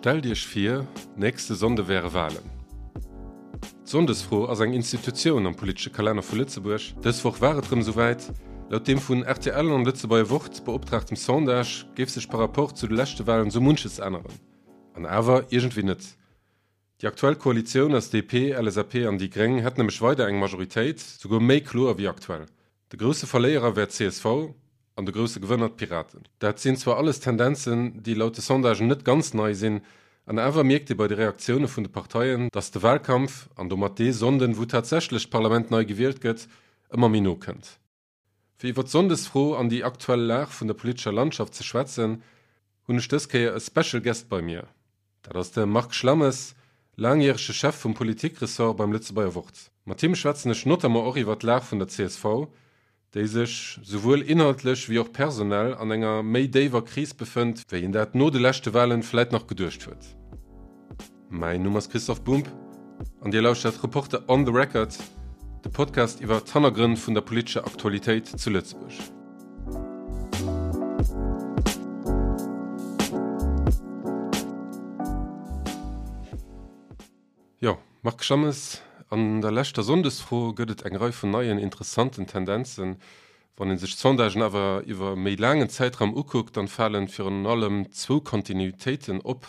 Stellt Iech vir, nächste Sonnde wäre Walen. D'Sonndesfro ass eng Institutioun am politesche Kalenner vu Lëtzebuerg. Dës Woch war et rëm esouwäit. Laut deem vun rtl an Lëtzebuerger Wort beoptraagtem Sondage géif sech par rapport zu de leschte Walen sou munches änneren. An awer iergendwéi net. Déi aktuell Koalitioun aus DP, LSAP an déi Gréng hätt nämlech weider eng Majoritéit, souguer méi kloer wéi aktuell. De grousse Verléierer wär d'CSV an de grousse Gewënner d'Piraten. Dat sinn zwar alles Tendenzen, déi laut de Sondagen net ganz nei sinn, an awer mierkt ee bei de Reaktioune vun de Parteien, datt de Walkampf, an domat dee Sonnden, wou tatsächlech d'Parlament nei gewielt gëtt, ëmmer méi no kënnt. Fir iwwer d'Sonndesfro an déi aktuell Lag vun der politescher Landschaft ze schwätzen, hunn ech dës Kéier e Special Guest bei mir. Dat ass de Marc Schlammes, laangjärege Chef vum Politik-Ressort beim Lëtzebuerger Wort. Mat him schwätzen ech notamment och iwwer d'Lag vun der csv, déi sech, souwuel inhaltlech wéi och personell, an enger méi déiwer Kris befënnt, wéi een dat no de leschte Walen vläit nach geduecht huet. Mäin Numm ass Christoph Bumb an Dir lauschtert Reporter on the Record, de Podcast iwwer d'Hannergrënn vun der politescher Aktualitéit zu Lëtzebuerg. Jo, Marc Schammes, an der leschter Sonndesfro gëtt et eng Rei vun neien interessanten Tendenzen. Wann ee sech d'Sondagen awer iwwer e méi laangen Zäitraum ukuckt, dann falen virun allem zwou Kontinuitéiten op,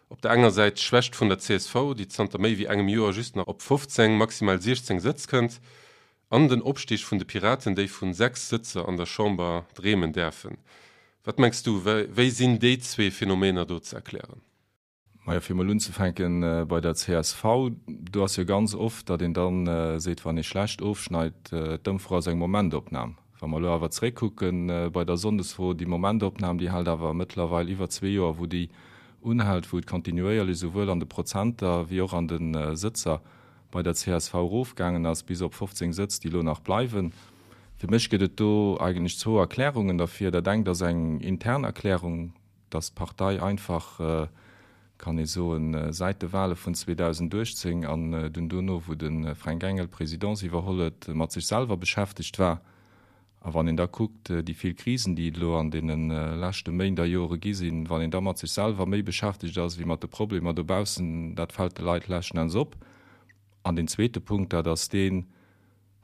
Op der enger Säit d'Schwächt vun der csv, déi zanter méi wéi engem Joer just nach op 15, maximal 16 Sëtz kënnt, an den Opstig vun de Piraten, déi vun 6 Sëtzer an der Chamber dreemen däerfen. Wat mengs du, wéi sinn déi zwee Phänomener do ze erklären? Majo, fir emol unzefänke bei der csv, do ass jo ganz oft, datt een da seet, wann ee schlecht ofschneit, d'Ëmfro ass eng Momentopnam. Wa mer elo awer zréckkucke bei der Sonndesfro, déi Momentopnam, déi hält awer mëttlerweil iwwer zwee Joer, wou déi unhält, wou et kontinuéierlech esouwuel an de Prozenter wéi och an de Sëtzer bei der csv erofgaangen ass, bis op 15 Sëtz, déi elo nach bleiwen. Fir mech gëtt et do eigentlech zwou Erklärungen derfir. Dat engt ass eng intern Erklärung, dass d'Partei einfach, kann ee soen, säit de Wahle vun 2018 an dunn dono, wou de Fränk Engel d'Presidence iwwerholl huet, mat sech selwer beschäftegt war. A wann een da kuckt, déi vill Krisen, déi et elo an deene leschte Méint a Jore gi sinn, wann een da mat sech selwer méi beschäftegt ass wéi mat de Problemer dobaussen, dat fält de Leit leschten Enns op. An deen zweete Punkt, dat ass deen,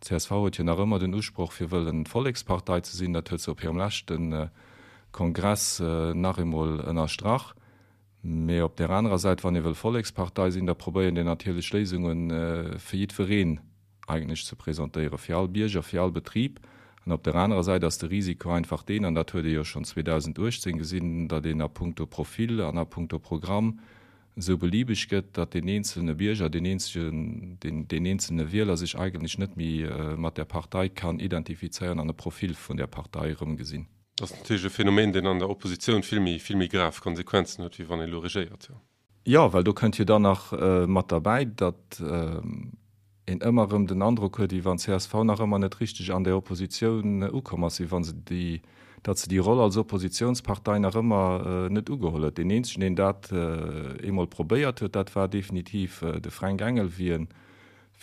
D'CSV huet jo nach ëmmer den Usproch fir wëllen d'Vollekspartei ze sinn. Dat huet se op hirem leschte Kongress nach eemol ënnerstrach. Mee op där anerer Säit, wann ee wëll Vollekspartei sinn, da probéiert een natierlech Léisunge fir jiddwereen eigentlech ze presentéieren, fir all Bierger, fir all Betrib. An op där anerer Säit ass de Risiko einfach deen, an dat huet ee jo schonn 2018 gesinn, datt een a puncto Profil an a puncto Programm esou beliebeg gëtt, datt deen eenzelne Bierger, deen eenzegen, deen, deen eenzelne Wieler sech eigentlech net méi mat där Partei kann identifizéieren an e Profil vun där Partei erëmgesinn. Dat ass natierlech e Phänomen, deen an der Oppositioun vill méi, vill méi grav Konsequenzen huet, wéi wann ee elo regéiert, jo. Jo, well do kënnt jo dann nach mat derbäi, datt een ëmmer erëm den Androck huet, wéi wann csv nach ëmmer net richteg an där Oppositioun ukomm ass, wéi wa se déi, datt se déi Roll als Oppositionspartei nach ëmmer net ugeholl huet. Deen eenzegen, deen dat eemol probéiert huet, dat war definitiv de Fränk Engel, wéi en,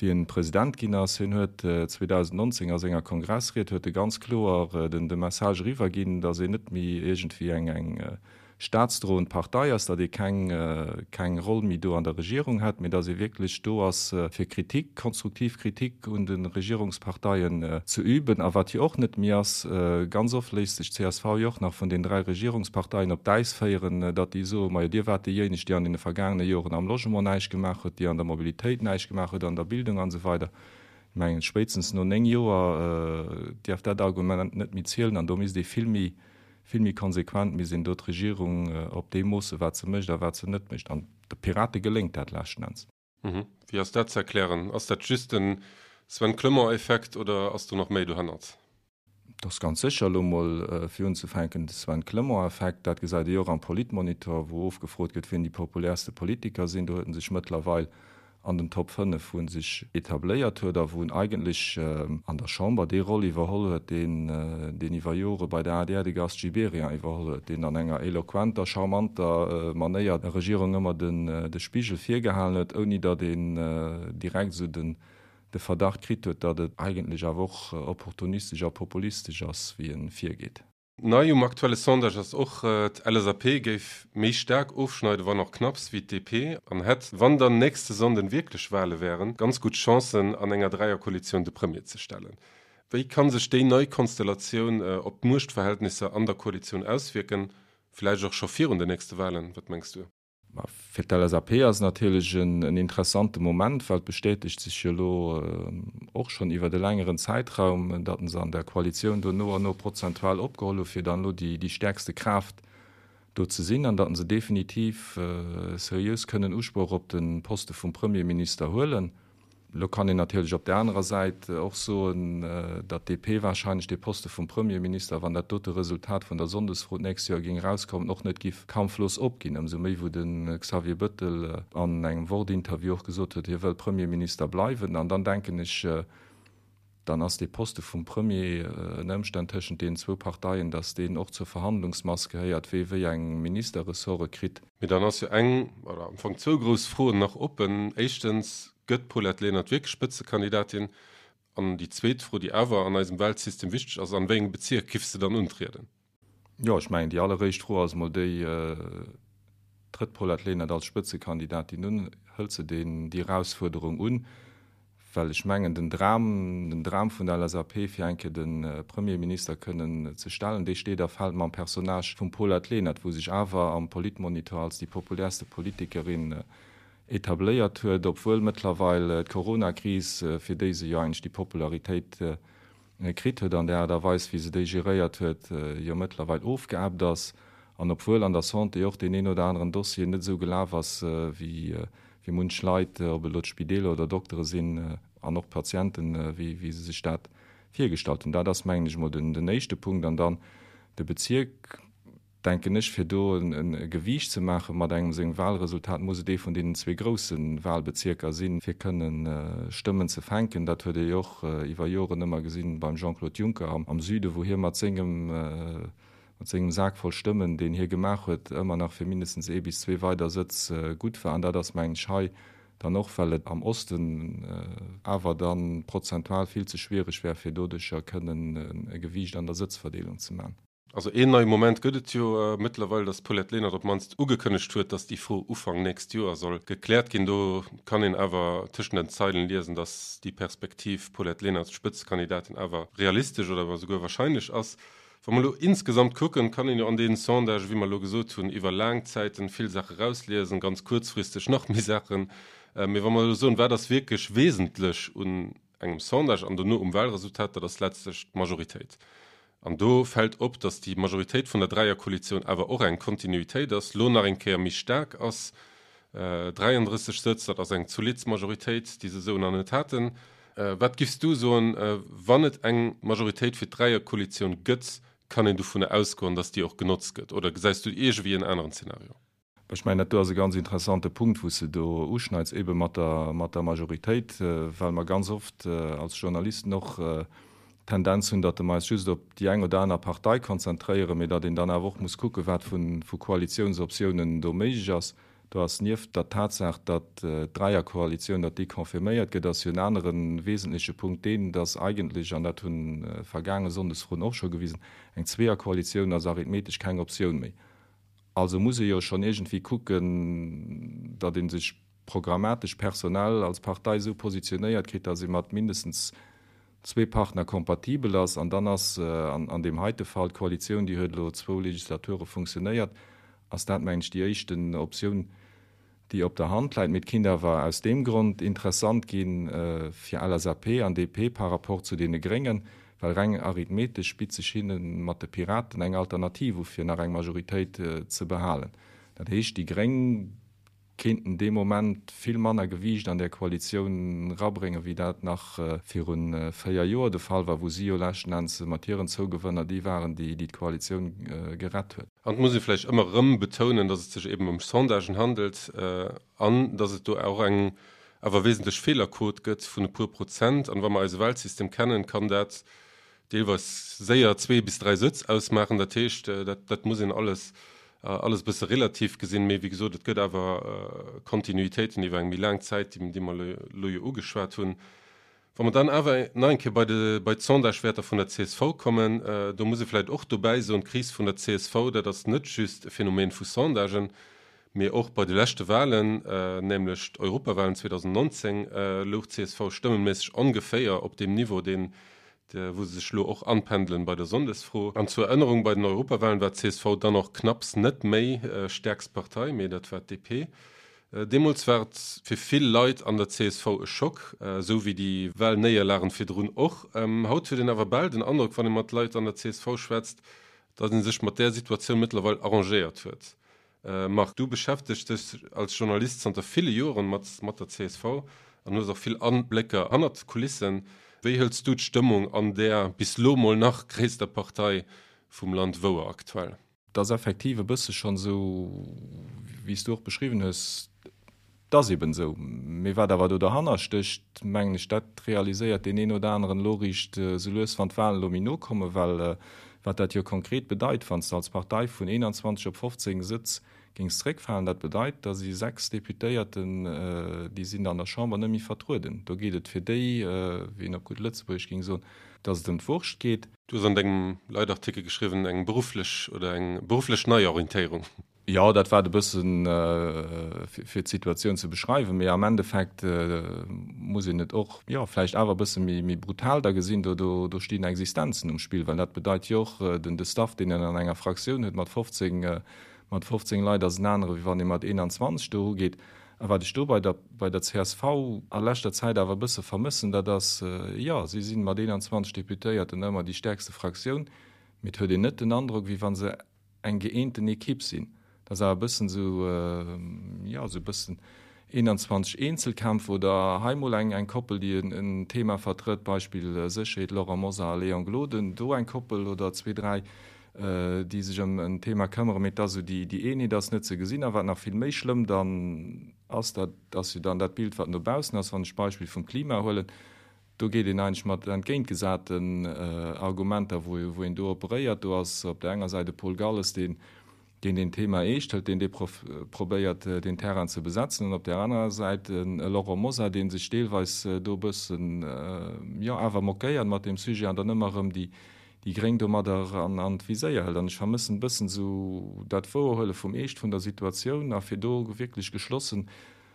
wéi en President ginn ass. Hien huet 2019 a senger Kongressried huet e ganz kloer den, de Message eriwwerginn, datt een net méi iergendwéi eng, eng staatsdroend Partei ass, datt ee keng keng Roll méi do an der Regierung hätt, mee datt ee wierklech do ass fir Kritik, konstruktiv Kritik un de Regierungsparteien ze üben. A wat jo och net méi ass, ganz oft léisst sech d'CSV jo och nach vun den 3 Regierungsparteien op d'Äis féieren, datt déi soen, majo Dir waart déijéineg, déi an deene vergaangene Joren am Logement näischt gemaach huet, déi an der Mobilitéit näischt gemaach huet, an der Bildung an esou weider. Ech mengen, spéitstens no 9 Joer dierf dat Argument net méi zielen an do misst ee vill méi Vill méi konsequent misst een do d'Regierung op deem moossen, wat se mécht a wat se net mécht. An de Pirate geléngt dat leschten Enns. Wéi ass dat ze erklären? Ass dat just den Sven Clement-Effekt oder ass do nach méi dohannert? Et ass ganz sécher elo mol fir unzefänken de Sven Clement-Effekt. Dat gesäit ee jo och am Politmonitor, wou ofgefrot gëtt, wien déi populärste Politiker sinn. Do huet en sech mëttlerweil an den Top 5, wou en sech etabléiert huet a wou en eigentlech an der Chamber déi Roll iwwerholl huet, deen deen iwwer Jore bei der adr de Gast Gibéryen iwwerholl huet, deen an enger eloquenter, charmanter Manéier der Regierung ëmmer den de Spigel virgehalen huet, ouni datt een direkt esou den de Verdacht kritt huet, datt et eigentlech awer och opportunistesch a populistesch ass, wéi e virgeet. Nei um aktuelle Sondage ass och, d'LSAP géif méi staark ofschneiden, wann och knapps, wéi d'DP an hätt, wann dann nächste Sonnden wierklech Wale wären, ganz gutt Chancen, an enger Dräierkoalitioun de Premier ze stellen. Wéi ka sech déi nei Konstellatioun op d'Muechtverhältnisser an der Koalitioun auswierken, vläicht och scho virun den nächste Walen? Wat mengs du? Ma fir d'LSAP ass et natierlech en interessante Moment, well et bestätegt sech jo elo och schonn iwwert e längeren Zäitraum, datt se an der Koalitioun do no an no prozentual opgeholl hu fir dann elo déi stäerkste Kraaft do ze sinn an datt se definitiv seriös kënnen Usproch op de Poste vum Premierminister huelen. Elo kann een natierlech op där anerer Säit och soen, datt d'DP wahrscheinlech dee Poste vum Premierminister, wann dat dote Resultat vun der Sonndesfro d'nächst Joer géing erauskommen, och net giff kampflos opginn. Ëmsou méi wou de Xavier Bëttel an engem Wort-Interview och gesot huet, hie wëll Premierminister bleiwen. An dann denken ech, dann ass dee Poste vum Premier ënner Ëmstänn tëschent deenen zwou Parteien, datt deen och zur Verhandlungsmass gehéiert, wee wéi eng Ministerressorte kritt. Mee dann ass jo eng, oder am Fong zwou grouss Froen nach oppen. Éischtens, Gëtt d'Paulette Lenert wierklech Spëtzekandidatin? An déi zweet Fro, déi awer an eisem Wahlsystem wichteg ass, An wéi engem Bezierk giff se dann untrieden? Jo, ech mengen, déi alleréischt Fro ass emol déi, Trëtt d'Paulette Lenert als Spëtzekandidatin un? Hëlt se deen, déi Erausfuerderung un? Well ech mengen, den Dram, den Dram vun der LSAP, fir eng Kéier de Premierminister kënnen ze stellen, dee steet a fält mam Personnage vum Paulette Lenert, wou sech awer am Politmonitor als déi populärste Politikerin etabléiert huet, obwuel mëttlerweil d'Coronakris, fir déi se jo eigentlech déi Popularitéit kritt huet an der Aart a Weis, wéi se déi geréiert huet, jo mëttlerweil ofgeebbt ass, an obwuel an der Santé och deen een oder aneren Dossier net esou gelaf ass, wéi munch Leit, ob et elo d'Spideeler oder Doktere sinn an och d'Patienten, wéi se sech dat virgestallt hunn. Dat ass, mengen ech emol, den éischte Punkt. An dann de Bezierk. denken ech, fir do e Gewiicht ze maache mat engem sengem Wahlresultat, muss et ee vun deenen zwee grousse Wahlbezierker sinn, fir kënne Stëmmen ze fänken. Dat huet ee jo och iwwer Joren ëmmer gesinn beim Jean-Claude Juncker am Süden, wou hie mat sengem, mat sengem Sak voll Stëmmen, deen hie gemaach huet, ëmmer nach fir mindestens ee bis zwee weider Sëtz gutt war. An dat ass, mengen ech, hei dann och, well et am Osten awer da prozentual vill ze schwiereg wär, fir doduercher kënnen e Gewiicht an der Sëtzverdeelung ze maachen. Also een neie Moment gëtt et jo mëttlerweil, datt d'Paulette Lenert op d'mannst ugekënnegt huet, datt déi Fro Ufank nächst Joer soll gekläert ginn. Do kann een awer tëschent den Zeilen liesen, datt déi Perspektiv Paulette Lenert Spëtzekandidatin awer realistesch oder esouguer wahrscheinlech ass. Wa mer elo insgesamt kucken, kann een jo an deenen Sondagen, wéi mer elo gesot hunn, iwwer laang Zäiten vill Saache rausliesen, ganz kuerzfristeg nach méi Saachen. Mee wa mer elo soen, wat ass wierklech wesentlech un engem Sondage an dono um Wahlresultat, dat ass letztlech d'Majoritéit. An do fält op, datt déi Majoritéit vun der Dräierkoalitioun awer och eng Kontinuitéit ass, lo nach eng Kéier méi staark ass, 33 Sëtz, dat ass eng zolidd Majoritéit, déi se esou nach net haten. Wat giffs du soen, wann et eng Majoritéit fir d'Dräierkoalitioun gëtt, kann een dovunner ausgoen, datt déi och genotzt gëtt, oder gesäis du iergendwéi en aneren Zeenario? Ech mengen, dat do ass e ganz interessante Punkt, wou s de do uschneits, eebe mat der, mat der Majoritéit, well mer ganz oft als Journalisten och d'Tendenz hunn, datt mer eis just op déi eng oder aner Partei konzentréieren, mee datt een dann awer och muss kucken, wat vu, vu Koalitiounsoptiounen do méiglech ass. Do ass nieft der Tatsaach, datt d'Dräierkoalitioun, datt déi confirméiert gëtt, ass jo en anere wesentleche Punkt deen, datt eigentlech, an dat hunn vergaange Sonndesfroen och scho gewisen, eng Zweeërkoalitioun ass arithmetesch keng Optioun méi. Also muss ee jo schonn iergendwéi kucken, datt ee sech programmatesch, personell als Partei esou positionéiert kritt, datt ee mat mindestens zwee Partner kompatibel ass. An dann ass an deem heite Fall d'Koalitioun, déi huet elo zwou Legislature funktionéiert, ass dat, mengen ech, déi éischten Optioun, déi op der Hand läit. Mee et kinnt awer aus deem Grond interessant gi fir LSAP an DP par rapport zu deene Gréngen, well reng arithmetesch bitt sech hinne mat de Piraten eng Alternativ u fir nach eng Majoritéit ze behalen. Dat heescht, déi Gréng kéinten dee Moment vill manner Gewiicht an där Koalitioun rabréngen, wéi dat nach viru 4 Joer de Fall war, wou si jo leschten Enns mat hiren Zougewënner déi waren, déi d'Koalitioun gerett huet. An et muss ee vläicht ëmmer erëm betounen, datt et sech eben ëm Sondagen handelt an datt et do och eng awer wesentlech Feelerquot gëtt vun e puer Prozent. An wa mer eise Wahlsystem kennen, kann dat deelweis séier zwee bis dräi Sëtz ausmaachen. Dat heescht, dat, dat muss een alles, alles e bësse relativ gesinn. Mee wéi gesot, et gëtt awer Kontinuitéiten iwwer eng méi laang Zäit, déi, déi mer elo jo ugeschwat hunn. Wa mer dann awer nach eng Kéier bei de, bei d'Sondagewäerter vun der csv kommen, do muss ee vläicht och dobäi soen, d'Kris vun der csv, dat ass net just e Phänomen vu Sondagen, mee och bei de leschte Wahlen, nämlech d'Europawahlen 2019, louch d'CSV stëmmeméisseg ongeféier op deem Niveau, deen, wou se sech elo och anpendelen bei der Sonndesfro. An zur Erënnerung, bei den Europawahlen war d'CSV dann och knapps net méi stäerkst Partei, mee dat war d'DP. Deemools war et fir vill Leit an der csv e Schock, esou wéi déi Wahlnéierlagen virdrun och. Haut huet een awer bal den Androck, wann ee mat Leit an der csv schwätzt, datt ee sech mat där Situatioun mëttlerweil arrangéiert huet. Marc, du beschäftegs dech als Journalist zanter ville Joren mat mat der csv an hues och vill Ablécker hannert d'Kulissen. Wéi hëls du d'Stëmmung an där bis lo mol nach gréisster Partei vum Land wouer aktuell? Et ass effektiv e bësse schonn esou, wéi s du och beschriwwen hues, et ass eben esou. Mee wat awer do derhanner stécht, mengen ech, dat realiséiert deen een oder aneren elo eréischt esou lues, wann d'Wahlen elo méi no kommen. Well wat dat jo konkret bedeit, wann s de als Partei vun 21 op 15 Sëtz géings zeréckfalen, dat bedeit, da si 6 Deputéierten, déi sinn an der Chamber net méi vertrueden. Do geet et fir déi, wéi een op gutt Lëtzebuergesch géing soen, datt et ëm d'Wurscht geet. Du hues an dengem Leitartikel geschriwwen, eng berufflech oder eng berufflech Neiorientéierung. Jo, dat war et e bëssen, fir d'Situatioun ze beschreiwen. Mee am Endeffekt muss een et och, jo, vläicht awer e bësse méi brutal da gesinn. Do, do stinn Existenzen um Spill, well dat bedeit jo och, den, de Staff, deen een an enger Fraktioun huet mat 15, mat 15 Leit ass en anere wéi wann ee mat 21 do erugeet. A wat ech do bei der, bei der csv a leschter Zäit awer e bësse vermëssen, dat ass, jo, si si mat 21 Deputéierten ëmmer déi stäerkste Fraktioun, mee et huet een net den Androck, wéi wa se eng gëeenten Ekipp sinn. Dat ass awer e bëssen esou, jo, esou e bëssen 21 Eenzelkämpfer oder hei mol eng, eng Koppel, déi en Thema vertrëtt, Beispill Sécherheet, Laurent Mosar a Léon Gloden, do eng Koppel oder zwee, dräi, déi sech ëm en Thema këmmeren, mee et ass esou, déi Eenheet ass net ze gesinn. A wat nach vill méi schlëmm dann ass, dat ass jo dann dat Bild, wat no baussen ass, wann ech d'Beispill vum Klima huelen, do geet een eigentlech mat entgéintgesaten Argumenter, wou een do operéiert. Do ass op där enger Säit e Paul Galles, deen deen Thema eescht hëlt, deen dee probéiert, deen Terrain ze besetzen, an op där anerer Säit e Laurent Mosar, dee sech deelweis do e bëssen, jo, awer moquéiert mat deem Sujet an dann ëmmer erëm déi déi Gréng domadder an d'Viséier hëlt. An ech vermëssen e bëssen esou dat Wouerhuele vum Eescht vun der Situatioun a fir do wierklech geschlossen,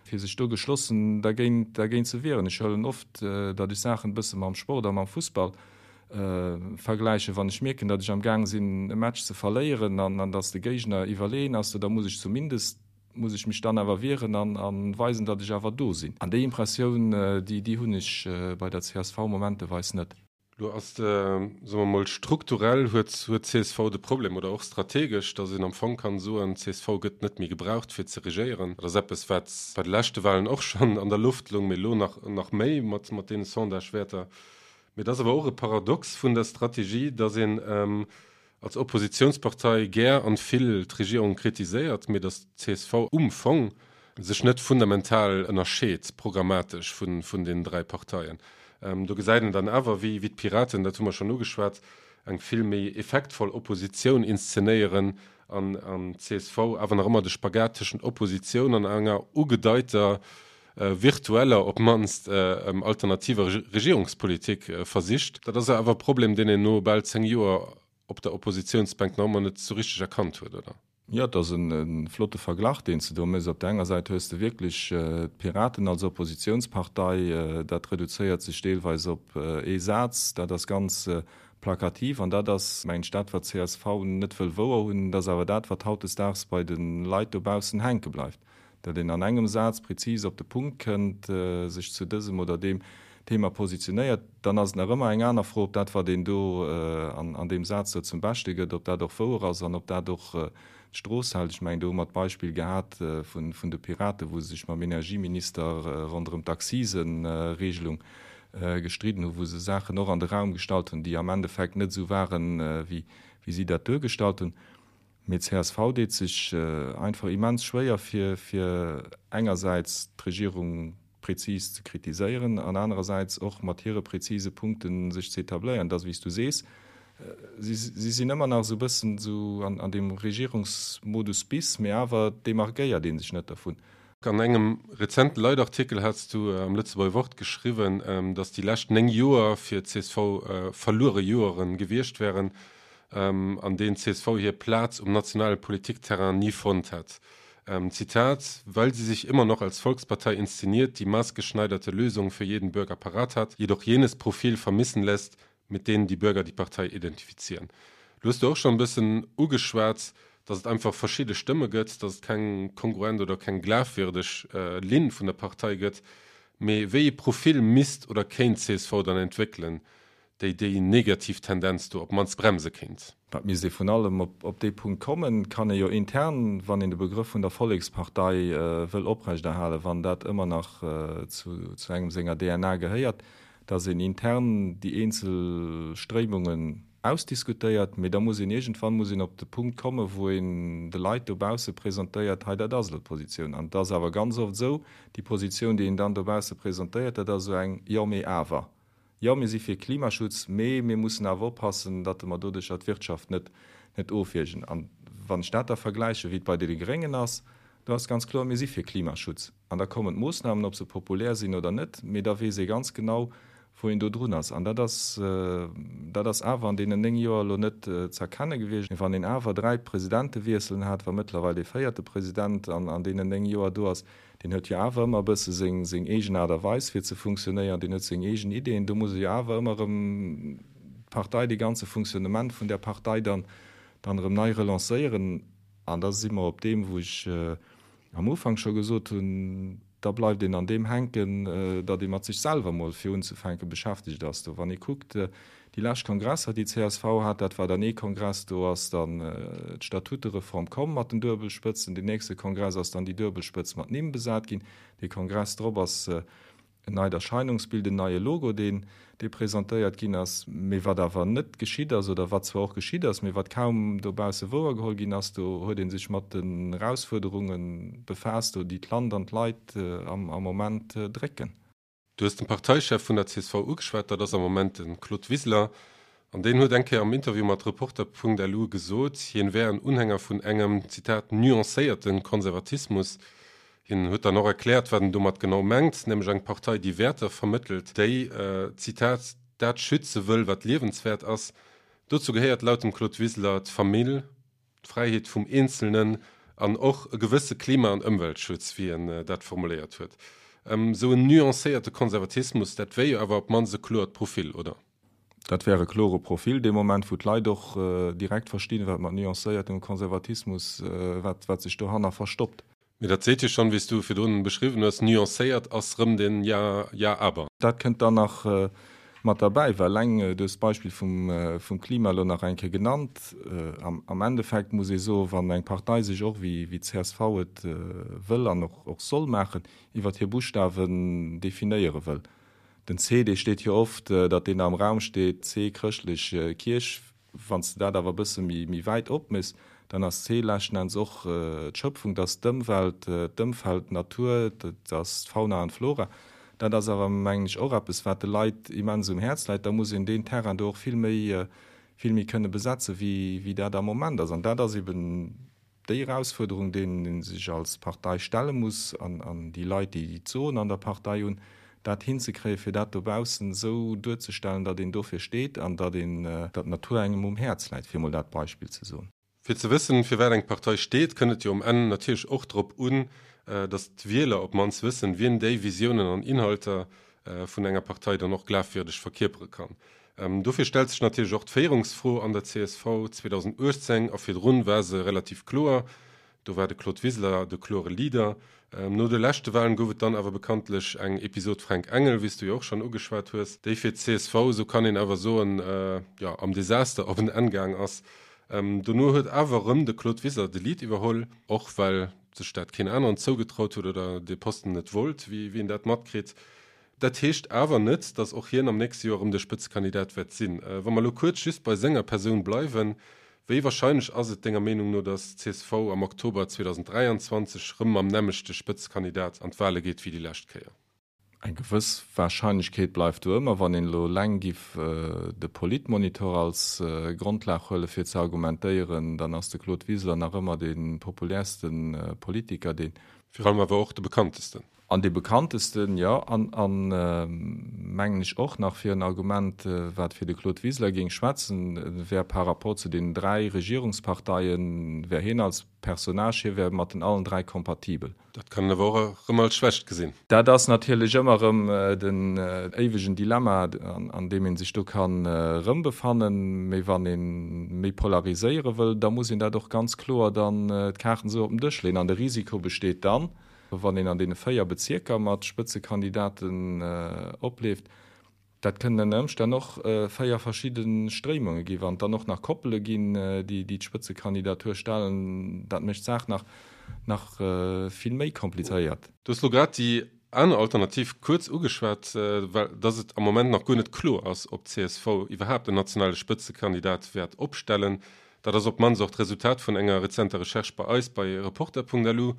fir sech do geschlossen dergéint, dergéint ze wieren. Ech huelen oft, datt ech Saachen e bësse mam Sport a mam Fussball vergläichen. Wann ech mierken, datt ech am Gaang sinn e Match ze verléieren an datt de Géigner iwwerleeën ass, da muss ech zumindest, muss ech mech dann awer wieren a weisen, datt ech awer do sinn. An déi Impressioun, déi, déi hunn ech bei der csv momenteweis net. Lo ass de, soe mer mol, strukturell huet huet csv de Problem, oder och strategesch, datt een am Fong kann soen, csv gëtt net méi gebraucht fir ze regéieren. Dat ass eppes, wat bei de leschte Wahlen och schonn an der Loft loung, mee elo nach nach méi mat mat deene Sondagewäerter. Mee et ass awer och e Paradox vun der Strategie, datt een als Oppositionspartei gär an vill d'Regierung kritiséiert, mee datt d'CSV um Fong sech net fundamental ënnerscheet programmatesch vun deenen 3 Parteien. Do gesäit een dann awer, wéi d'Piraten, dat hu mer schonn ugeschwat, eng vill méi effektvoll Oppositioun inszenéieren an d'CSV awer nach ëmmer de Spagat tëschent Oppositioun an enger ugedeiter virtueller op d'mannst alternativer Regierungspolitik versicht. Dat ass awer e Problem, deen een no bal 10 Joer op der Oppositionsbänk nach ëmmer net sou richteg erkannt huet, oder? Jo, et ass e flotte Verglach, deen s de do méchs. Op der enger Säit hues de wierklech d'Piraten als Oppositionspartei, dat reduzéiert sech deelweis op ee Saz, dat ass ganz plakativ an dat ass, mengen ech, dat wat csv net wëll wouer hunn, dat ass awer dat, wat hautdesdaags bei de Leit dobaussen hänke bleift. Datt een an engem Saz prezis op de Punkt kënnt, sech zu dësem oder deem Thema positionéiert, dann ass et nach ëmmer eng aner Fro, ob dat, wat een do an deem Saz do zum Beschte gëtt, ob dat och wouer ass an ob dat och d'Strooss hält. Ech mengen, do hu mer d'Beispill gehat vun de Piraten, wou se sech mam Energieminister ronderëm d'Akziseregelung gestridden hunn, wou se Saachen och an de Raum gestallt hunn, déi am Endeffekt net esou waren, wéi si dat duergestallt hunn. Mee csv deet sech einfach immens schwéier fir fir engersäits d'Regierung prezis ze kritiséieren an anerersäits och mat hire prezise Punkte sech ze etabléieren. Et ass wéi s du sees, si si sinn ëmmer nach esou e bëssen esou an an deem Regierungsmodus bis, mee awer demarkéiert ee sech net dervun. An engem rezenten Leitartikel hats du am Lëtzebuerger Wort geschriwwen, datt déi lescht 9 Joer fir d'CSV verluere Joeren gewiescht wären, an deenen d'CSV hir Plaz um nationale Politikterrain ni fonnt hätt. Zitat, Weil sie sich immer noch als Volkspartei inszeniert, die maßgeschneiderte Lösungen für jeden Bürger parat hat, jedoch jenes Profil vermissen lässt, mit denen die Bürger die Partei identifizieren. Lo hues du och schonn e bëssen ugeschwat, dass et einfach verschidde Stëmme gëtt, dass et keng kongruent oder keng glafwierdeg Linn vun der Partei gëtt. Mee wéi ee Profil misst oder kéint csv dann entwéckelen, déi déi negativ Tendenz do op d'mannst bremse kéint? Dat misst ee vun allem op dee Punkt kommen. Et kann ee jo intern, wann een de Begrëff vun der Vollekspartei wëll oprechterhalen, wann dat ëmmer nach zu engem senger DNA gehéiert, datt een intern déi eenzel Stréimungen ausdiskutéiert, mee da muss een iergendwann muss een op de Punkt kommen, wou een de Leit dobausse presentéiert, hei dat ass elo d'Positioun. An et ass awer ganz oft esou, déi Positioun, déi een dann dobausse presentéiert, dat ass esou eng Jo, mee awer. Jo, mir si fir Klimaschutz, mee mir mussen awer oppassen, datt mer doduercher d'Wirtschaft net net ofwiergen. An wann ech dat da vergläichen, wéi et bei deene Gréngen ass, do ass ganz kloer, mir si fir Klimaschutz. An da kommen d'Moossnamen, ob se populär sinn oder net, mee da weess ee ganz genau, wou een do drun ass. An dat ass, dat ass awer an deenen 9 Joer elo net ze erkenne gewiescht. Wann een awer 3 Presidentewiesselen hat, wa mëttlerweil dee véierte President an an deenen 9 Joer do ass, deen huet jo awer ëmmer e bësse seng, seng eegen Aart a Weis fir ze funktionéieren, deen huet seng eegen Ideeën, do muss e jo awer ëmmer erëm d'Partei, dee ganze Funktionnement vun där Partei dann, dann erëm nei relancéieren. An da si mer op deem, wou ech am Ufank scho gesot hunn, da bleift een an deem hänken, datt ee mat sech selwer mol fir unzefänke beschäftegt ass. Do wann ee kuckt, déi lescht Kongresser, déi csv hat, dat war dann ee Kongress, do ass dann d'Statutereform komm mat den Duebelspëtzen, deen nächste Kongress ass dann déi Duebelspëtz mat Nimm besat ginn, dee Kongress drop ass en neit Erscheinungsbild, en neie Logo, deen, dee presentéiert ginn ass, mee wat awer net geschitt ass, oder wat zwar och geschitt ass, mee wat kaum dobausse wouergeholl ginn ass, do huet ee sech mat den Erausfuerderunge befaasst, do déi d'Land an d'Leit am Moment drécken. Du hues den Parteichef vun der csv ugeschwat, dat ass am Moment de Claude Wiseler. An deen huet eng Kéier am Interview mat Reporter.lu gesot, hien wär en Unhänger vun engem, Zitat, nuancéierte Konservatismus. Hien huet dann och erkläert, wat en domat genau mengt, nämlech eng Partei, déi Wäerter vermëttelt, déi, Zitat, dat schütze wëll, wat liewenswäert ass. Dozou gehéiert laut dem Claude Wiseler d'Famill, d'Fräiheet vum Eenzelnen an och e gewësse Klima an Ëmweltschutz, wéi en dat formuléiert huet. Esou en nuancéierte Konservatismus, dat wär jo awer op d'mannst e kloert Profil, oder? Dat wär e klore Profil dee Moment, wou d'Leit och direkt verstinn, wat mat nuancéiertem Konservatismus, wat wat sech dohanner verstoppt. Mee dat seet jo schonn, wéi s du virdrun beschriwwen hues, nuancéiert ass rëm den Ja, ja aber. Dat kënnt dann nach mat derbäi, well eleng, du hues d'Beispill vum vum Klima elo nach eng Kéier genannt, am am Endeffekt muss ee soen, wann eng Partei sech och, wéi wéi d'CSV et wëll an och och soll maachen, iwwert hir Buschtawen definéiere wëll, Den C, dee steet jo oft, datt deen am Raum steet, C, chrëschtlech Kierch. Wann s de dat awer e bësse méi wäit opméchs, dann ass C leschten Enns och d'Schöpfung, dat ass d'Ëmwelt, d'Ëmfeld, d'Natur, dat ass d'Fauna an d'Flora. Dat ass awer, mengen ech, och eppes, wat de Leit immens um Häerz läit. Da muss een deen Terrain do och vill méi, vill méi kënne besetze wéi dat am Moment ass. An dat ass eben Déi Erausfuerderung, deenen ee sech als Partei stelle muss, an déi Leit, déi d'Soen an der Partei hunn, dat hinzekréien, fir dat dobaussen esou duerzestellen, datt een dofir steet an datt een, datt d'Natur engem um Häerz läit, fir emol dat Beispill ze soen. Fir ze wëssen, fir wat eng Partei steet, kënnt et jo um Enn natierlech och drop un, datt d'Wieler op d'mannst wëssen, wien déi Visiounen an Inhalter vun enger Partei dann och glafwierdeg verkierpere kann. Dofir stellt sech natierlech och d'Féierungsfro an der csv. 2018 a virdrun war se relativ kloer, do war de Claude Wiseler de klore Leader. No de leschte Walen gouf et dann awer bekanntlech eng Episod Fränk Engel, wéi s du jo och schonn ugeschwat hues, déi fir d'CSV, esou kann een awer soen, jo am Desaster op en Enn gaang ass. Dono huet awer erëm de Claude Wiseler de Lead iwwerholl, och well sech dat keen aneren zougetraut huet oder dee Posten net wollt, wéi een dat matkritt. Dat heescht awer net, datt och hien am nächste Joer erëm de Spëtzekandidat wäert sinn. Wa mer elo kuerz just bei senger Persoun bleiwen, wéi warscheinlech ass et denger Meenung no, datt csv am Oktober 2023 rëm mam nämmlechte Spëtzekandidat an d'Wale geet wéi déi lescht Kéier? Eng gewëss Warscheinlechkeet bleift do ëmmer. Wann een elo eleng giff de Politmonitor als Grondlag huelen, fir ze argumentéieren, dann ass de Claude Wiseler nach ëmmer dee populärste Politiker, deen. Virun allem awer och de bekanntesten. An dee bekanntesten, jo. An, an mengen ech och nach fir en Argument, wat fir de Claude Wiseler géing schwätzen, wär par rapport zu deenen 3 Regierungsparteien, wär hien als Personnage, hie wär mat den allen 3 kompatibel. Dat kann een awer och erëm als Schwächt gesinn. Dat ass natierlech ëmmer erëm den éiwegen Dilemma, an deem ee sech do kann erëmbefannen. Mee wann ee méi polariséiere wëll, da muss een dat och ganz kloer dann d'Kaarten esou op den Dësch leeën. An de Risiko besteet dann, wann een an deene 4 Bezierker mat Spëtzekandidaten opleeft, Dat kënnen ënner Ëmstänn och 4 verschidde Stréimunge ginn. Wann et dann och nach Koppele ginn, déi d'Spëtzekandidatur stellen, dat mécht d'Saach nach nach vill méi komplizéiert. Du hues elo grad déi aner Alternativ kuerz ugeschwat, well dass et am Moment nach guer net kloer ass, ob d'CSV iwwerhaapt en nationale Spëtzekandidat wäert opstellen. Dat ass op d'mannst och d'Resultat vun enger rezenter Recherche bei eis bei Reporter.lu.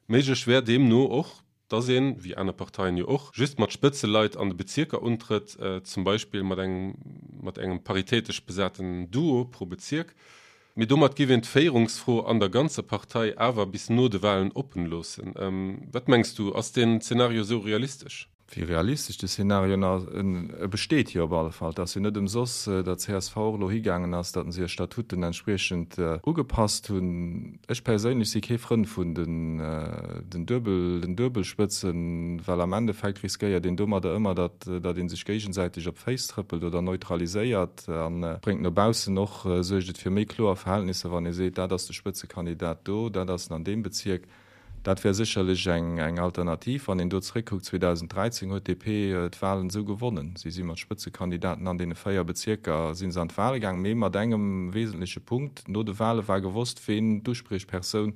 Méiglech wär deemno och, dass een, wéi aner Parteien jo och, just mat Spëtzeleit an de Bezierker untrëtt, zum Beispill mat engem mat engem paritätesch besaten Duo pro Bezierk. Mee domat géif een d'Féierungsfro an der ganzer Partei awer bis no de Walen oppen loossen. Wat mengs du, ass deen Zenario esou realistesch? Wéi realistesch de Szenario ass, e besteet jo op alle Fall. Et ass jo net ëmsoss, datt csv och elo higaangen ass, datt se hir Statuten entspriechend ugepasst hunn. Ech perséinlech si kee Frënd vun den Duebel, den Duebelspëtzen, well am Endeffekt riskéiert een domadder ëmmer, datt datt ee sech géigesäiteg op d'Féiss trëppelt oder neutraliséiert a bréngt no baussen och, suergt et fir méi kloer Verhältnisser, wann ee seet, dat ass de Spëtzekandidat do, dat ass en an deem Bezierk. Dat wär sécherlech eng Alternativ. Wann een do zeréckkuckt, 2013 huet d'DP d'Wahlen esou gewonnen. Si si mat Spëtzekandidaten an deene 4 Bezierker si se an d'Wahle gaang, mee mat engem wesentleche Punkt, No de Wahle war gewosst, ween d'Uspriechpersoun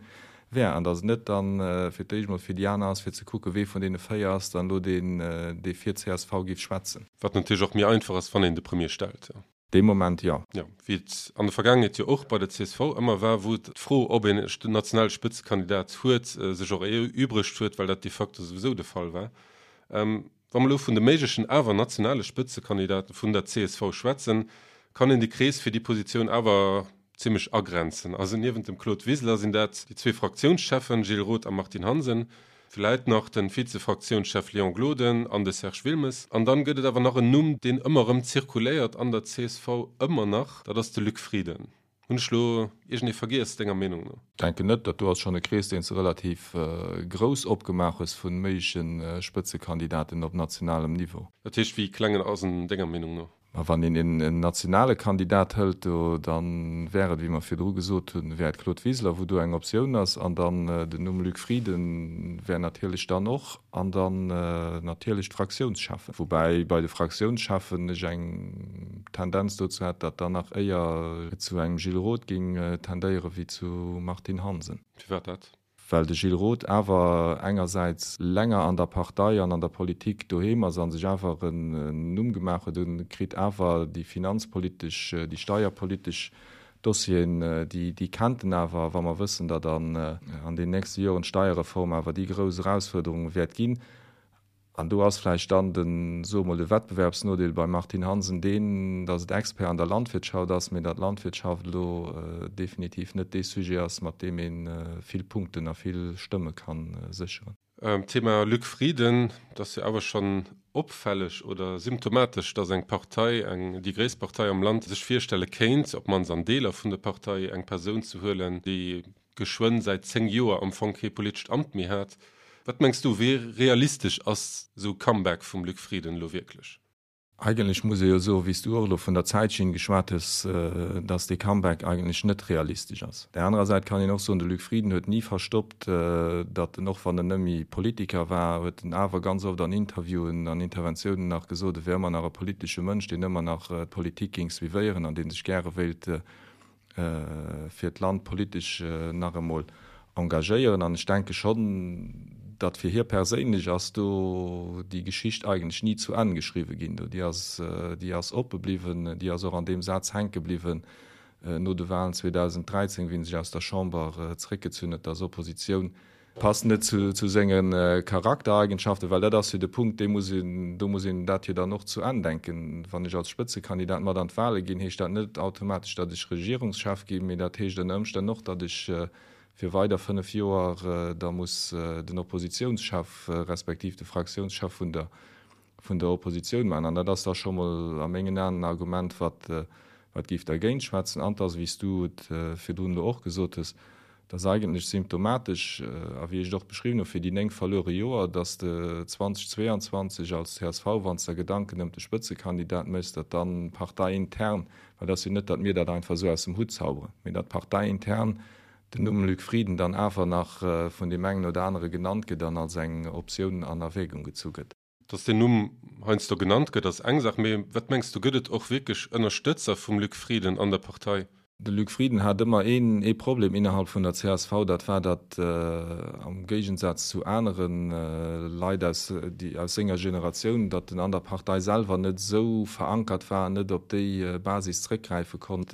wär an datt et net dann fir d'éischt emol fir déi aner ass, fir ze kucken, wee vun deene 4 ass dann elo deen, dee fir csv géif schwätzen. Wat natierlech och méi einfach ass, wann een de Premier stellt. Dee Moment jo. Jo, wéi et an der Vergaangenheet jo och bei der csv ëmmer war, wou d'Fro, ob een e nationale Spëtzekandidat huet, sech och erübregt huet, well dat de facto souwisou de Fall war. Wa mer elo vun de méiglechen awer nationale Spëtzekandidate vun der csv schwätzen, kann een de Krees fir déi Positioun awer zimmlech agrenzen. Also niewent dem Claude Wiseler sinn dat déi zwee Fraktiounscheffen Gilles Roth a Martine Hansen, vläit nach de Vize-Fraktiounschef Léon Gloden an de Serge Wilmes. An dann gëtt et awer nach en Numm, deen ëmmer erëm zirkuléiert an der csv, ëmmer nach, dat ass de Luc Frieden. Hunn ech elo iergendee vergiess, denger Meenung no? Denken net. Dat do ass schonn e Krees, deen s de relativ grouss opgemaach hues vu méigleche Spëtzekandidaten op nationalem Niveau. Dat heescht, wéi kleng ass en denger Meenung no? Ma wann een en nationale Kandidat hëlt do, da wär et, wéi mer virdru gesot hunn, wär et Claude Wiseler, wou do eng Optioun ass, an dann den Numm Luc Frieden wär natierlech dann och, an dann natierlech d'Fraktiounscheffen. Woubäi bei de Fraktiounscheffen ech eng Tendenz dozou hätt, datt dann nach éier et zu engem Gilles Roth géing tendéiere wéi zu Martine Hansen. Firwat dat? Well de Gilles Roth awer engersäits länger an der Partei an an der Politik doheem ass a sech awer en Numm gemaach huet, e kritt awer déi finanzpolitesch, déi steierpolitesch Dossieren, déi kennt en awer. A wa mer wëssen, datt an den nächste Joren d'Steierreform awer déi grouss Erausfuerderung wäert ginn, An do ass vläicht dann den, soe mol, de Wettbewerbsnodeel beim Martine Hansen deen, datt et Expert an der Landwirtschaft ass, mee datt d'Landwirtschaft elo definitiv net dee Sujet ass, mat deem ee vill Punkten a vill Stëmme ka sécheren. Thema Luc Frieden, Et ass jo awer schonn opfälleg oder symptomatesch, datt eng Partei, eng, déi gréisst Partei am Land, sech virstelle kéint, op d'mannst an Deeler vun der Partei, eng Persoun ze huelen, déi geschwënn säit 10 Joer am Fong kee politescht Amt méi hat. Wat mengs du, wéi realistesch ass esou e Comeback vum Luc Frieden elo wierklech? Eigentlech muss ee jo soen, wéi s du och elo vun der Zäitschinn geschwat hues, datt dee Comeback eigentlech net realistesch ass. Op där anerer Säit kann een och soen, de Luc Frieden huet ni verstoppt, datt en, och wann en net méi Politiker war, huet en awer ganz oft an Interviewen an Interventiounen nach gesot, e wär ëmmer nach e politesche Mënsch, deen ëmmer nach d'Politik géing suivéieren an dee sech gäre wéilt fir d'Land politesch nach emol engagéieren. An ech denke schonn, datt fir hie perséinlech ass do déi Geschicht eigentlech ni zu Enn geschriwwe ginn. Do déi ass, déi ass oppe bliwwen, déi ass och an deem Saz hänke bliwwen no de Wahlen 2013, wéi en sech aus der Chamber zeréckgezunn huet, datt Oppositioun Passt net zu senge Charaktereigenschaften, well dat ass jo de Punkt, dee muss een, do muss een dat jo dann och zu Enn denken. Wann ech als Spëtzekandidat mat an d'Wahle ginn, heescht dat net automatesch, datt ech Regierungschef ginn, mee dat heescht ënner Ëmstänn och, datt ech. fir weider 5 Joer da muss den Oppositiounschef respektiv de Fraktiounschef vun der vun der Oppositioun maachen. An dat ass da scho mol a mengen Aen en Argument, wat wat géif dergéint schwätzen. An et ass, wéi s du et virdrun elo och gesot hues, et ass eigentlech symptomatesch, a wéi ech et och beschriwwen hu fir déi 9 verluere Joer, datt de 2022 als csv, wann s der Gedanken ëm de Spëtzekandidat méchs, datt dann parteiintern, well et ass jo net, datt mir dat einfach esou aus dem Hutt zauberen, mee datt parteiintern den Numm Luc Frieden dann awer nach vun deem engen oder anere genannt gëtt an als eng Optioun an Erwägung gezu gëtt. Datt deen Numm heiansdo genannt gëtt, ass eng Saach, mee wat mengs du, gëtt et och wierklech Ënnerstëtzer vum Luc Frieden an der Partei? De Luc Frieden hat ëmmer een ee Problem innerhalb vun der csv, dat war, datt am Géigensaz zu anere Leit aus déi aus senger Generatioun, datt en an der Partei selwer net esou verankert war an net op déi Basis zréckgräife konnt,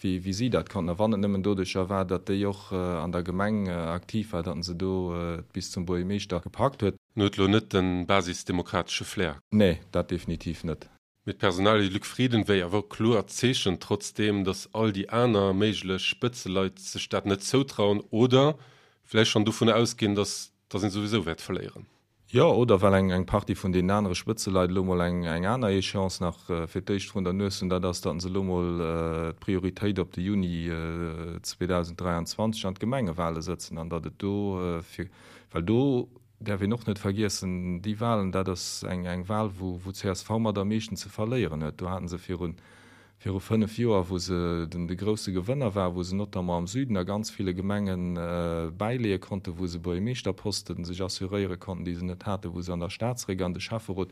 wéi wéi si dat konnten. A wann et nëmmen doduercher war, datt déi och an der Gemeng aktiv war, datt en se do bis zum Buergermeeschter gepackt huet. En huet lo net de basisdemokratesche Flair. Nee, dat definitiv net. Mee d'Personalie Luc Frieden wéi awer kloer Zeechen, trotzdeem datt all déi aner méiglech Spëtzeleit sech dat net zoutrauen oder vläicht schonn dovunner ausginn, datt datt een souwisou wäert verléieren. Jo, oder well eng eng Partie vun deenen anere Spëtzeleit elo mol eng eng aner Échéance nach fir d'éischt vrun der Nues hunn, dat ass, datt se elo mol d'Prioritéit op de Juni 2023 an d'Gemengewale sëtzen an datt et do fir, well do däerf een och net vergiessen, déi Wahlen, dat ass eng eng Wahl, wou wou csv mat am meeschten ze verléieren huet. Do haten se virun viru 5 Joer, wou se den de grousse Gewënner war, wou se notamment am Süden a ganz ville Gemenge bäileeë konnten, wou se Buergermeeschterposten sech assuréiere konnten, déi se net haten, wou se an der Stad zeréck an de Schäfferot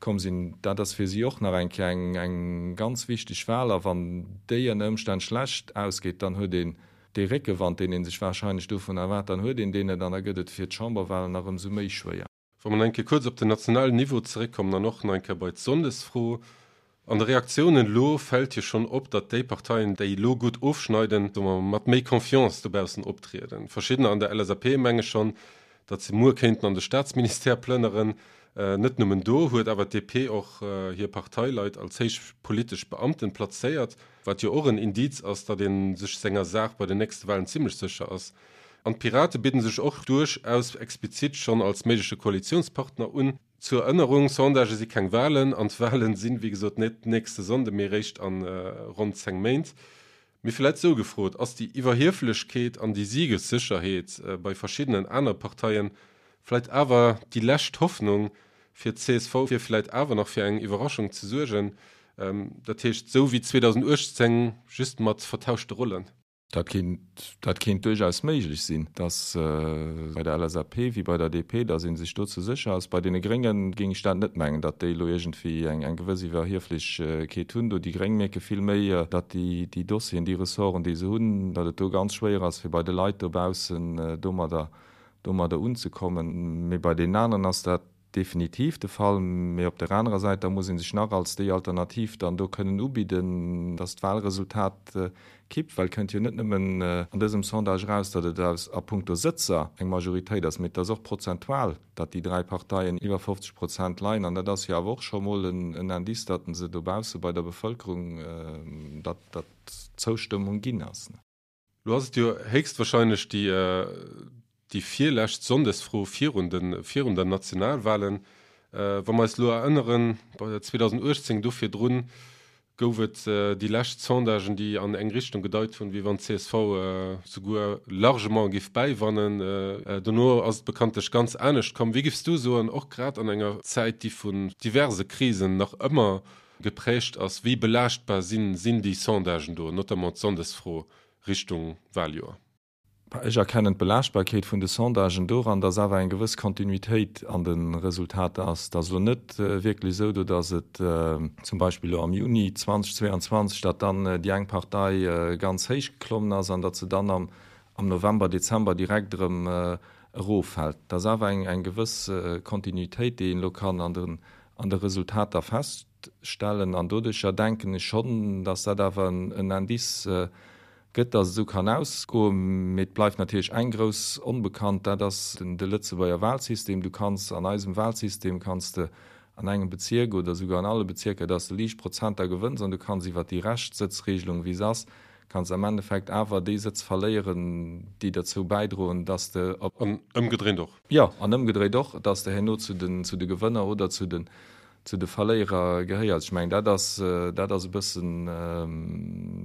komm sinn. Dat ass fir si och nach eng Kéier eng eng ganz wichteg Wahl. A wann déi ënner Ëmstänn schlecht ausgeet, dann huet een Dee Réckewand, deen ee sech warscheinlech dovun erwaart, dann huet een deen net an da gëtt et fir d'Chamberwahlen nach ëmsou méi schwéier. Wa mer nach eng Kéier kuerz op den nationalen Niveau zeréckkommen an och nach eng Kéier bei d'Sonndesfro. An de Reaktiounen elo fält jo schonn op, datt déi Parteien, déi elo gutt ofschneiden, soe mer, mat méi Confiance dobaussen optrieden. Verschiddener an der LSAP menge schonn, datt se muer kéinten an de Staatsministère plënneren. Net nëmmen do huet awer d'DP och hir Parteileit als héich politesch Beamten plazéiert, wat jo och en Indiz ass, datt ee sech senger Saach bei den nächste Walen zimmlech sécher ass. An d'Pirate bidden sech och duerchaus explizit schonn als méigleche Koalitiounspartner un. Zur Erënnerung, Sondagë si keng Walen an d'Walen sinn, wéi gesot, net nächste Sonnde mee réischt a ronn 10 Méint. Mee vläit sou gefrot, Ass déi Iwwerhieflechkeet an déi Siegessécherheet bei verschiddenen anere Parteien vläit awer déi lescht Hoffnung fir d'CSV, fir vläit awer nach fir eng Iwwerraschung ze suergen? Dat heescht, sou wéi 2018, just mat vertauschte Rollen? Dat kéint, dat kéint duerchaus méiglech sinn, dass bei der LSAP wéi bei der DP, dass ee sech do ze sécher ass. Bei deene Grénge géing ech dat net mengen, datt déi elo iergendwéi eng, eng gewëss Iwwerhieflechkeet hunn do. Déi Gréng mierke vill méi, datt déi, déi Dossieren, déi Ressorten, déi se hunn, datt et do ganz schwéier ass, fir bei de Leit dobaussen domadder, domadder unzekommen. Mee bei deenen aneren ass dat definitiv de Fall. Mee op der anerer Säit, da muss ee sech nach als déi Alternativ dann do kënnen ubidden, datt d'Wahlresultat kippt, well et kënnt jo net nëmmen an dësem Sondage eraus, datt et aus a puncto Sëtzer eng Majoritéit ass, mee et ass och prozentual, datt déi 3 Parteien iwwer 50 Prozent leien. An dat ass jo awer och scho mol en Indice, datt se dobausse bei der Bevëlkerung, datt d'Zoustëmmung ginn ass. Lo ass et jo héchstwahrscheinlech déi déi virlescht Sonndesfro virun de virun der Nationalwahlen. Wa mer eis elo erënneren, bei 2018, do virdrun gouf et déi lescht Sondagen, déi an eng Richtung gedeit hunn, wéi wann d'CSV souguer largement géif bäiwannen. Dono ass et bekanntlech ganz anescht komm. Wéi géifs du soen, och grad an enger Zäit, déi vun diverse Krisen nach ëmmer geprägt ass, wéi belaaschtbar sinn sinn déi Sondagen do, notamment d'Sonndesfro Richtung Wahljoer? Ech erkennen d'Belaaschtbarkeet vun de Sondagen doran, dass awer eng gewëss Kontinuitéit an de Resultater ass. Et ass elo net wierklech esou do, dass et zum Beispill elo am Juni 2022, datt dann déi eng Partei ganz héich geklommen ass an datt se dann am November, Dezember direkt erëm eroffält. Et ass awer eng gewëss Kontinuitéit, déi een elo kann an de an de Resultater feststellen. An doduercher denken ech schonn, dass dat awer en Indice gëtt, dass et esou kann ausgoen. Mee et bleift natierlech eng grouss Onbekannt, dat ass de Lëtzebuerger Wahlsystem. Du kanns an eisem Wahlsystem kanns de an engem Bezierk oder souguer an alle Bezierker, dass de liicht Prozenter gewënns an du kanns iwwert déi Reschtsëtzregelung, wéi se ass, Kanns am Endeffekt awer déi Sëtz verléieren, déi derzou bäidroen, dass de op. An ëmgedréint och. Jo, an ëmgedréit och, dass de herno zu den, zu de Gewënner oder zu den, zu de Verléierer gehéiers. Ech mengen, dat ass, dat ass e bëssen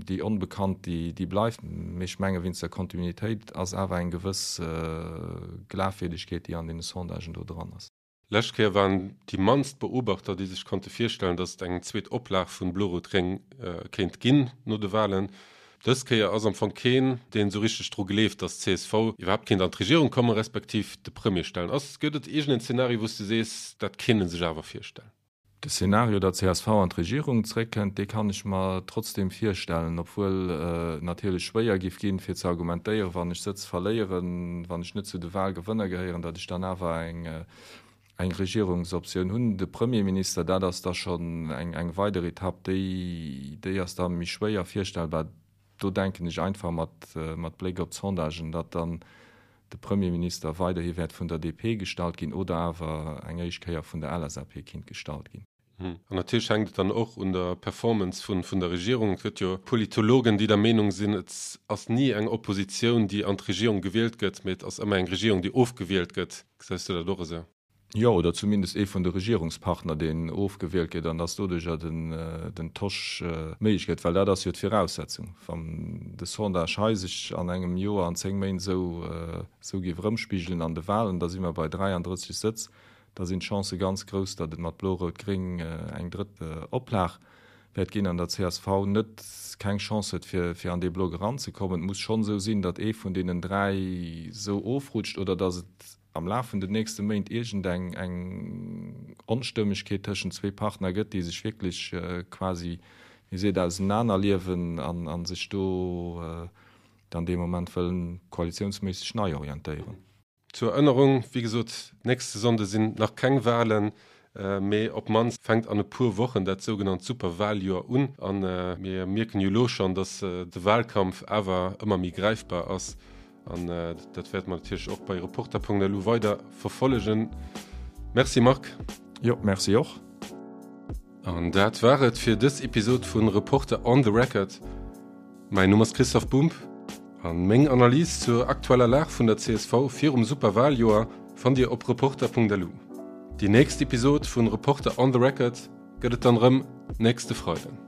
déi Onbekannt, déi, déi bleift. Mee ech menge wéinst der Kontinuitéit ass awer eng gewëss Glafwierdegkeet, déi an deene Sondagen do dran ass. Lescht Kéier waren déi mannst Beobachter, déi sech konnte virstellen, datt et eng zweet Oplag vun Blo-Rot-Gréng kéint ginn no de Walen. Dës Kéier ass am Fong keen, deen esou richteg dru gleeft, datt csv iwwerhaapt kéint an d'Regierung kommen, respektiv de Premier stellen. Ass, gëtt et iergend en Zeenario, wou s de sees, dat kéint e sech awer virstellen? De Szenario, datt csv an d'Regierung zréckkënnt, dee kann ech mer trotzdeem virstellen, obwuel et natierlech schwéier giff ginn, fir ze argumentéieren, wann ech Sëtz verléieren, wann ech net zu de Wahlgewënner gehéieren, datt ech dann awer eng Regierungsoptioun hunn. De Premierminister, dat ass da schonn eng weider Etapp, déi déi ass da méi schwéier virstellbar. Do denken ech einfach mat Bléck op d'Sondagen, datt dann de Premierminister weiderhi wäert vun der DP gestallt ginn oder awer eng éischt Kéier vun der LSAP kinnt gestallt ginn. An natierlech hänkt et dann och un der Performance vun der Regierung. Et gëtt jo Politologen, déi der Meenung sinn, et ass ni eng Oppositioun, déi an d'Regierung gewielt gëtt, mee et ass ëmmer eng Regierung, déi ofgewielt gëtt. Gesäis du dat och esou? Jo, oder zumindest ee vun de Regierungspartner, deen ofgewielt gëtt, an dass doduercher den Tosch méiglech gëtt. Well dat ass jo d'Viraussetzung. Wann de Sondage hei sech an engem Joer, an 10 Méint esou géif erëmspigelen an de Wahlen, da si mer bei 33 Sëtz, da sinn d'Chancë ganz grouss, datt et mat Blo-Rout-Gréng eng drëtt Oplag wäert ginn an der csv net keng Chance huet, fir an dee Block eranzekommen. Et muss schonn esou sinn, datt ee vun deenen 3 esou ofrutscht oder datt et am Laf vun den nächste Méint iergend eng eng Onstëmmegkeet tëschent zwee Partner gëtt, déi sech wierklech quasi, wéi seet, ausenanerliewen an a sech do dann dee Moment wëllen koalitiounsméisseg nei orientéieren. Zur Erënnerung, wéi gesot, nächste Sonnde sinn nach keng Wahlen, mee op d'mannst fänkt an e puer Wochen dat sougenannt Superwahljoer un. A mir mierken jo elo schonn, datt de Wahlkampf awer ëmmer méi gräifbar ass. An dat wäerte mer natierlech och bei Reporter.lu weider verfollegen. Merci Marc. Jo, merci och. An dat war et fir dës Episod vun Reporter on the Record. Mäin Numm ass Christoph Bumb an meng Analys zur aktueller Lag vun der csv virum Superwaljoer fannt Dir op Reporter.lu. Déi nächst Episod vun Reporter on the Record gëtt et dann rëm nächste Freiden.